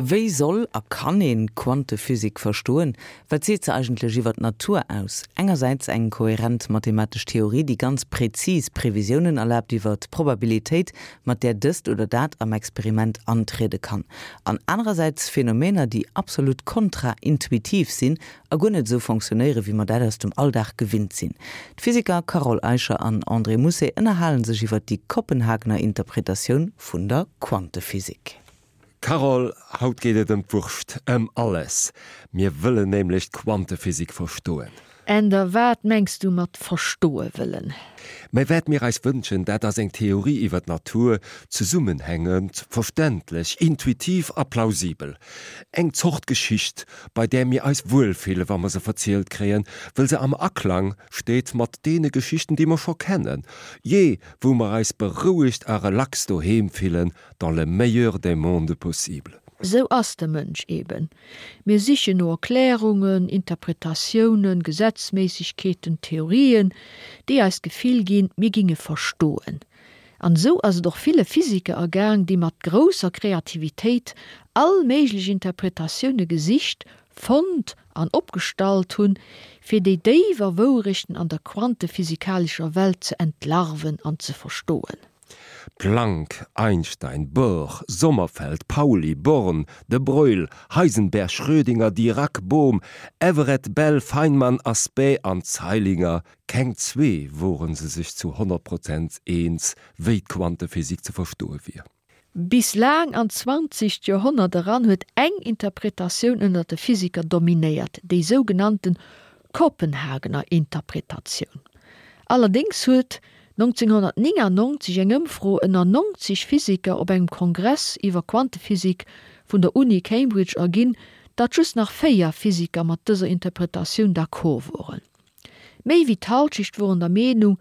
Wéi soll a kann een d'Quantephysik verstoen? Wat seet se eigentlech iwwer d'Natur aus? Engersäits eng kohärent mathematesch Theorie, déi ganz präzis Previsiounen erlaabt iwwer d'Probabilitéit, mat där dëst oder dat am Experiment antriede kann. An anerersäits Phänomener, déi absolut kontraintuitiv sinn a guer net esou fonctionnéieren, wéi mer dat aus dem Alldag gewinnt sinn. D'Physiker Carole Eicher an André Mousset ënnerhale sech iwwer déi Kopenhagener Interpretatioun vun der Quantephysik. Carole, haut geet et ëm d'Wurscht, ëm alles. Mir wëllen nämlech d'Quantephysik verstoen. Änder, Wat mengs du mat verstoe wëllen? Mä wat mir eis wënschen, dat ass eng Theorie iwwer d'Natur, zesummenhängend, verständlech, intuitiv a plausibel. Eng Zort Geschicht, bei där mir eis wuelfille wa mer se verzielt kréien, wëll se am Aklang steet mat deene Geschichten, déi mer scho kennen, jee wou mer eis berouegt a relax doheem fillen, dans le meilleur des mondes possibles. Sou ass de Mënsch eben. Mir sichen no Erklärungen, Interpretatiounen, Gesetzméissegkeeten, Theorien, déi eis d'Gefill ginn, mir ginge verstoen. An esou ass et och ville Physiker ergaang, déi mat grousser Kreativitéit all méiglech Interpretatioune gesicht, fonnt an opgestallt hunn, fir déi déiwer Wourechten an der quantephysikalescher Welt ze entlarven an ze verstoen. Planck, Einstein, Bohr, Sommerfeld, Pauli, Born, de Broglie, Heisenberg, Schrödinger, Dirac, Bohm, Everett, Bell, Feynman, Aspect an Zeilinger, keng zwee woren se sech zu 100 Prozent eens, wéi d'Quantephysik ze verstoe wier. Bis laang an d'zwanzegt Joerhonnert eran huet eng Interpretatioun ënner de Physiker dominéiert, déi sougenannten Kopenhagener Interpretatioun. Allerdéngs huet 1999 eng Ëmfro ënner 90 Physiker op engem Kongress iwwer Quantephysik vun der Uni Cambridge erginn, datt just nach 4 Physiker mat dëser Interpretatioun d'accord woren. Méi wéi d'Halschecht woren der Meenung,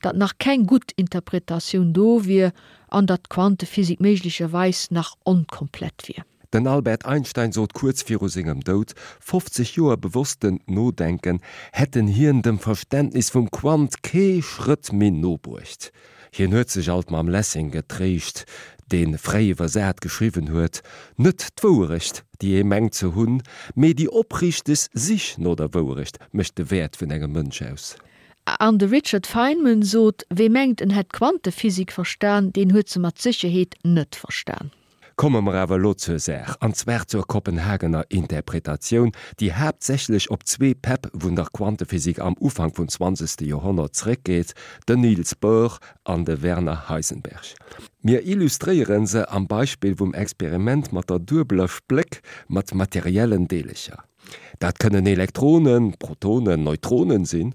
datt nach keng gutt Interpretatioun do wier an datt d'Quantephysik méiglecherweis nach onkomplett wier. Den Albert Einstein sot kuerz viru sengem Doud, 50 Joer bewossten Nodenken hätten hien dem Verständnis vum Quant kee Schrëtt méi no bruecht. Hien huet sech alt mam Lessing getréischt, dee fräi iwwersat geschriwwen huet, Net d'Wouerecht, déi ee mengt ze hunn, mee déi opriichteg Sich no der Wouerecht mécht de Wäert vun engem Mënsch aus. An de Richard Feynman sot, Wee mengt en hätt d'Quantephysik verstan, deen huet se mat Sécherheet net verstan. Komme mer awer elo zur Saach, an zwar zur Kopenhagener Interpretatioun, déi haaptsächlech op zwee Päpp vun der Quantephysik am Ufank vum zwanzegste Joerhonnert zréckgeet, den Niels Bohr an de Werner Heisenberg. Mir illustréiere se am Beispill vum Experiment mat der duebeler Spléck mat materiellen Deelecher. Dat kënnen Elektronen, Protonen, Neutronen sinn,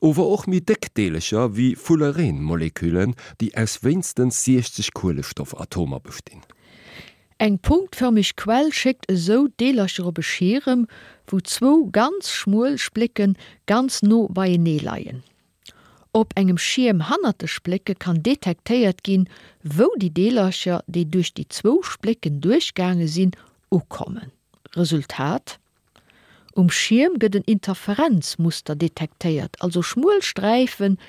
ower och méi déck Deelecher wéi Fullerene-Moleküllen, déi aus wéinstens 60 Kuelestoffatomer bestinn. Eng punktfërmeg Quell schéckt esou d'Deelercher op e Schierem, wou zwou ganz schmuel Splécke ganz no beienee leien. Op engem Schierm hannert de Splécke kann detektéiert ginn, wou déi Deelercher, déi duerch déi zwou Splécken duerchgaange sinn, ukommen. Resultat, Um Schierm gëtt en Interferenzmuster detektéiert, also schmuel Sträifen,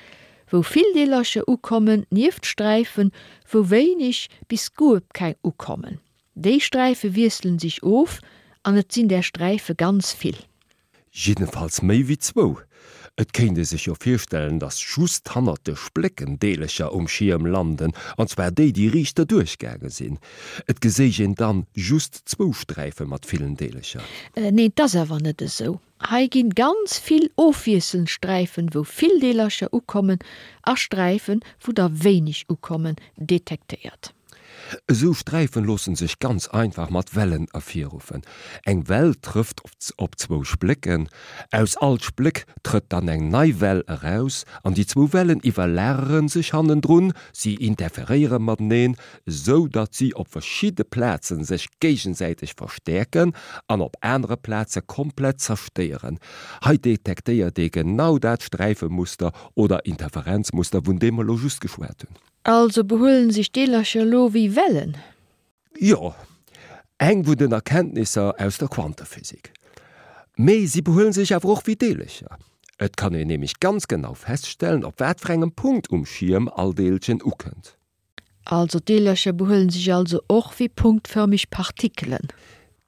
wou vill Deelercher ukommen, nieft Sträifen, wou wéineg bis guer keng ukommen. Déi Sträife wiesselen sech of an et sinn där Sträife ganz vill. Jiddefalls méi wéi zwou. Et kéint ee sech jo virstellen, datt just hannert de Splécken Deelercher um Schierm landen, an zwar déi, déi riicht derduerch gaange sinn. Et geséich een dann just zwou Sträife mat villen Deelercher. Neen, 't ass awer net esou. Hei ginn ganz vill ofwiesselnd Sträifen, wou vill Deelercher ukommen, a Sträifen, wou der wéineg ukommen, detektéiert. Esou Sträifen loossen sech ganz einfach mat Wellen ervirruffen. Eng Well trëfft op zwou Splécken, aus all Spléck trëtt dann eng nei Well eraus an déi zwou Wellen iwwerlagere sech hannendrun, si interferéiere mateneen, esou datt si op verschidde Plazen sech géigesäiteg verstäerken an op anere Plaze komplett zerstéieren. Hei detektéiert ee genau dat Sträifemuster oder Interferenzmuster, vun deem mer elo just geschwat hunn. Also behuelen sech d'Deelercher elo wéi Wellen? Jo, eng vun den Erkenntnisser aus der Quantephysik. Mee si behuelen sech awer och wéi Deelercher. Et kann een nämlech ganz genau feststellen, op wat fir engem Punkt um Schierm all Deelchen ukënnt. Also d'Deelercher behuelen sech also och wéi punktförmeg Partikelen?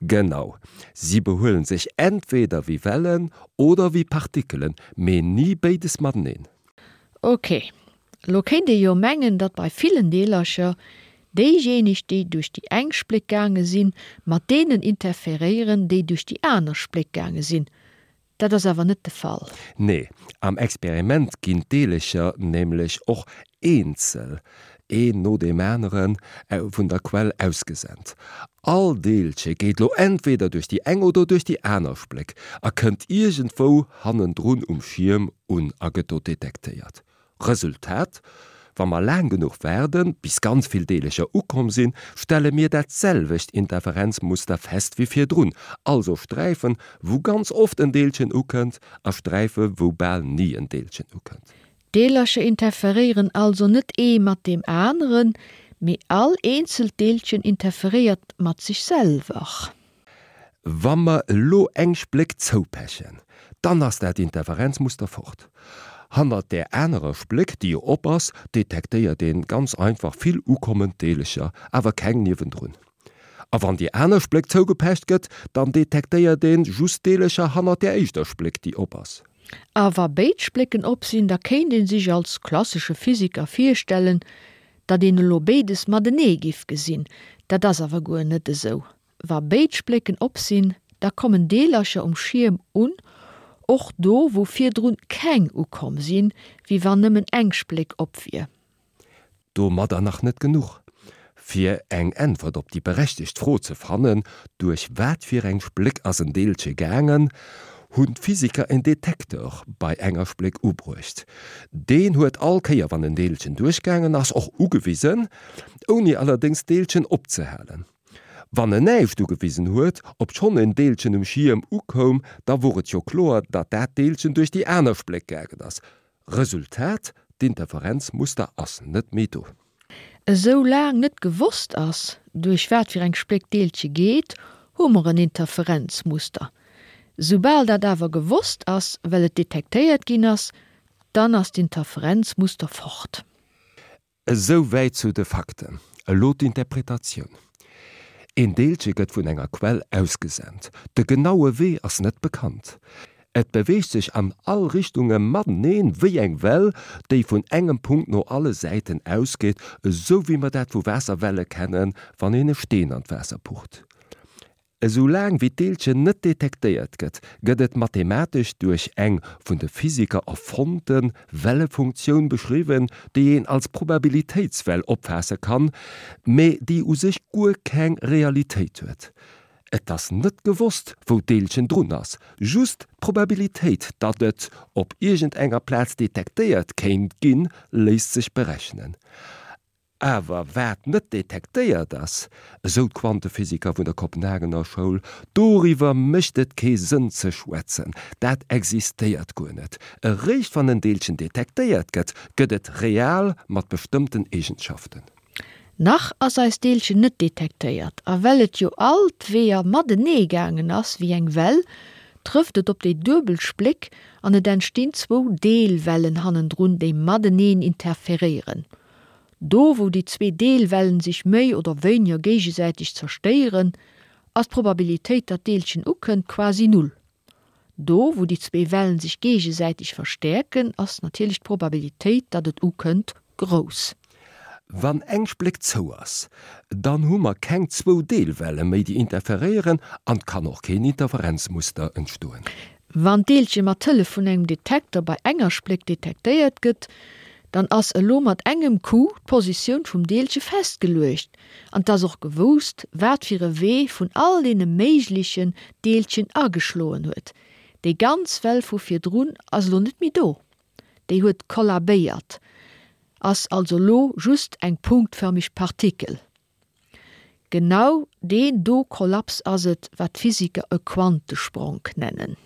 Genau, si behuelen sech entweder wéi Wellen oder wéi Partikelen, mee ni béides mateneen. Ok, lo kéint ee jo mengen, datt bei villen Deelercher déijéineg, déi duerch déi eng Spléck gaange sinn, mat deenen interferéieren, déi duerch déi aner Spléck gaange sinn. Dat ass awer net de Fall. Nee, am Experiment ginn d'Deelercher nämlech och eenzel, een no deem aneren, vun der Quell ausgesent. All Deelche geet lo entweder duerch déi eng oder duerch déi aner Spléck a kënnt iergendwou hannendrun um Schierm un a gëtt do detektéiert. Resultat, Wa mer laang genuch waarden, bis ganz vill Deelercher ukomm sinn, stelle mir dat selwecht Interferenzmuster fest wéi virdrun, also Sträifen, wou ganz oft en Deelchen ukënnt, a Sträife wou bal ni en Deelchen ukënnt. D'Deelercher interferéieren also net ee mat deem aneren, mee all eenzelt Deelchen interferéiert mat sech selwer. Wa mer elo eng Spléck zoupechen, dann ass dat Interferenzmuster fort. Hannert där anerer Spléck, déi jo op ass, detektéiert een ganz einfach vill ukommend Deelecher, awer keng niewendrun. A wann déi aner Spléck zougepecht gëtt, dann detektéiert een just Deelecher hannert där éischter Spléck, déi op ass. A wa béid Splécken op sinn, da kéint een sech als klassesche Physiker virstellen, datt een elo béides matenee giff gesinn. Dat ass awer guer net esou. Wa béid Splécken op sinn, da kommen Deelercher um Schierm un, och do wou virdrun keng ukomm sinn, wéi wann nëmmen eng Spléck op wier. Domadder nach net genuch. Fir eng Äntwert op déi berechtegt Fro ze fannen, duerch wat fir eng Spléck ass en Deelche gaangen, hunn d'Physiker en Detektor bei enger Spléck ubruecht. Deen huet all Kéier wann en Deelchen duerchgaangen ass och ugewisen, ouni allerdéngs d'Deelchen opzehalen. Wann en näischt ugewisen huet, obschonn en Deelchen um Schierm ukoum, da wor et jo kloer, datt dat Deelchen duerch déi aner Spléck gaangen ass. Resultat, D'Interferenzmuster ass net méi do. Esou laang net gewosst ass, duerch wat fir eng Spléck d'Deelche geet, hu mer en Interferenzmuster. Soubal dat awer gewosst ass, well et detektéiert ginn ass, dann ass d'Interferenzmuster fort. Esou wäit zu de Fakten. Elo d'Interpretatioun. Een Deelche gëtt vun enger Quell ausgesent. De genaue Wee ass net bekannt. Et beweegt sech an all Richtunge mateneen, wéi eng Well, déi vun engem Punkt no alle Säiten ausgeet, esou wéi mer dat vu Waasserwelle kennen, wann een e Steen an d'Waasser pucht. Esou laang wéi d'Deelchen net detektéiert gëtt, gëtt et mathematesch duerch eng vun de Physiker erfonnte Wellefunktioun beschriwwen, déi een als Probabilitéitswell opfaasse kann, mä déi u sech guer keng Realitéit huet. Et ass net gewosst, wou d'Deelchen drun ass, just d'Probabilitéit, datt et op iergendenger Plaz detektéiert kéint ginn, léisst sech berechnen. Awer wat net detektéiert ass, esou d'Quantephysiker vun der Kopenhagener Schoul, doriwwer mécht et kee Sënn ze schwätzen, dat existéiert guer net. Eréischt wann en Deelchen detektéiert gëtt, gëtt et real mat bestëmmten Eegenschaften. Nach ass eist Deelchen net detektéiert, a well et jo all d'Weeër matenee gaangen ass wéi eng Well, trëfft et op déi duebel Spléck an et entstinn zwou Deelwellen hannendrun, déi mateneen interferéieren. Do wou déi zwee Deelwellen sech méi oder wéiniger géigesäiteg zerstéieren, ass d'Probabilitéit datt d'Deelchen ukënnt quasi null. Do wou déi zwee Wellen sech géigesäiteg verstäerken, ass natierlech d'Probabilitéit datt et ukënnt grouss. Wann eng Spléck zou ass, dann hu mer keng zwou Deelwelle méi déi interferéieren an 't kann och keen Interferenzmuster entstoen. Wann d'Deelche mat Hëllef vun engem Detekter bei enger Spléck detektéiert gëtt, dann ass elo mat engem Coup d'Positioun vum Deelche festgeluecht an 't ass och gewousst, wat fir e Wee vun all deene méiglechen d'Deelchen ageschloen huet. Déi ganz Well vu virdrun ass elo net méi do, déi huet kollabéiert, ass also elo just eng punktförmeg Partikel. Genau deen do Kollaps ass et, wat d'Physiker e Quantespronk nennen.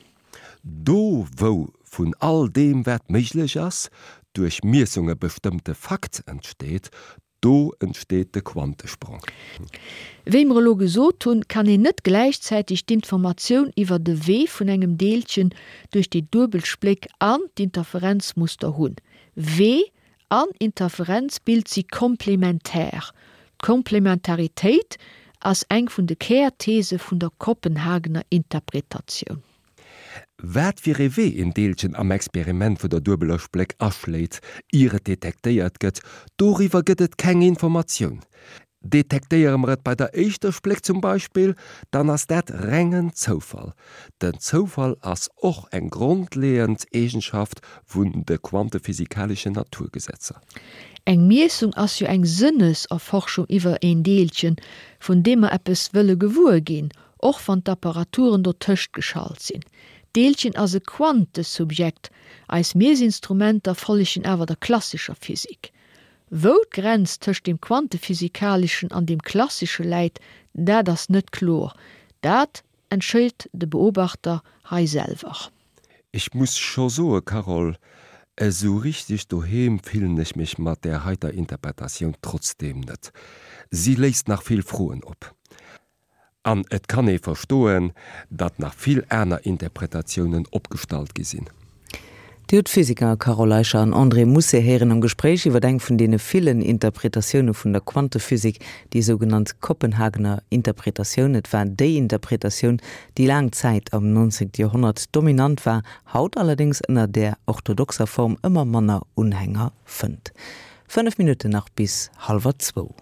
Do wou vun all deem wat méiglech ass, duerch Miessunge bestëmmte Fakt entsteet, do entsteet de Quantespronk. Wéi mer elo gesot hunn, kann een net gläichzäiteg d'Informatioun iwwer de Wee vun engem Deelchen duerch déi duebel Spléck an d'Interferenzmuster hunn. Wee an Interferenzbild si komplementär. D'Komplementaritéit. ass eng vun de Kärthese vun der Kopenhagener Interpretatioun. Wat fir ee Wee een Deelchen am Experiment vun der duebeler Spléck aschléit, ier et detektéiert gëtt, doriwwer gëtt et keng Informatioun. Detektéiere mer et bei der éischter Spléck zum Beispill, dann ass dat rengen Zoufall. Den Zoufall ass och eng grondleeënd Eegenschaft vun de quantephysikaleschen Naturgesetzer. Eng Miessung ass jo eng Sënneserforschung iwwer een Deelchen, vun deem mer eppes wëlle gewuer ginn, och wann d'Apparaturen dotëscht geschalt sinn. D'Deelchen ass e Quantesubjekt, eis Miessinstrumenter follegen awer der klassescher Physik. Wou d'Grenz tëscht deem Quantephysikaleschen an deem Klassesche läit, dat ass net kloer. Dat entscheet de Beobachter hei selwer. Ech muss scho soe Carole, esou richteg doheem fillen ech mech mat där heiter Interpretatioun trotzdeem net. Si léisst nach vill Froen op. An et kann ee verstoen, datt nach vill aner Interpretatiounen opgestallt gi sinn. Dir hutt d'Physiker Carole Eicher an André Mousset héieren am Gespréich iwwer eng vun deene villen Interpretatioune vun der Quantephysik, déi sougenannt Kopenhagener Interpretatioun. Et war déi Interpretatioun, déi laang Zäit am 19. Joerhonnert dominant war, haut allerdéngs ënner där orthodoxer Form ëmmer manner Unhänger fënnt. 5 Minutten nach bis hallwer zwou.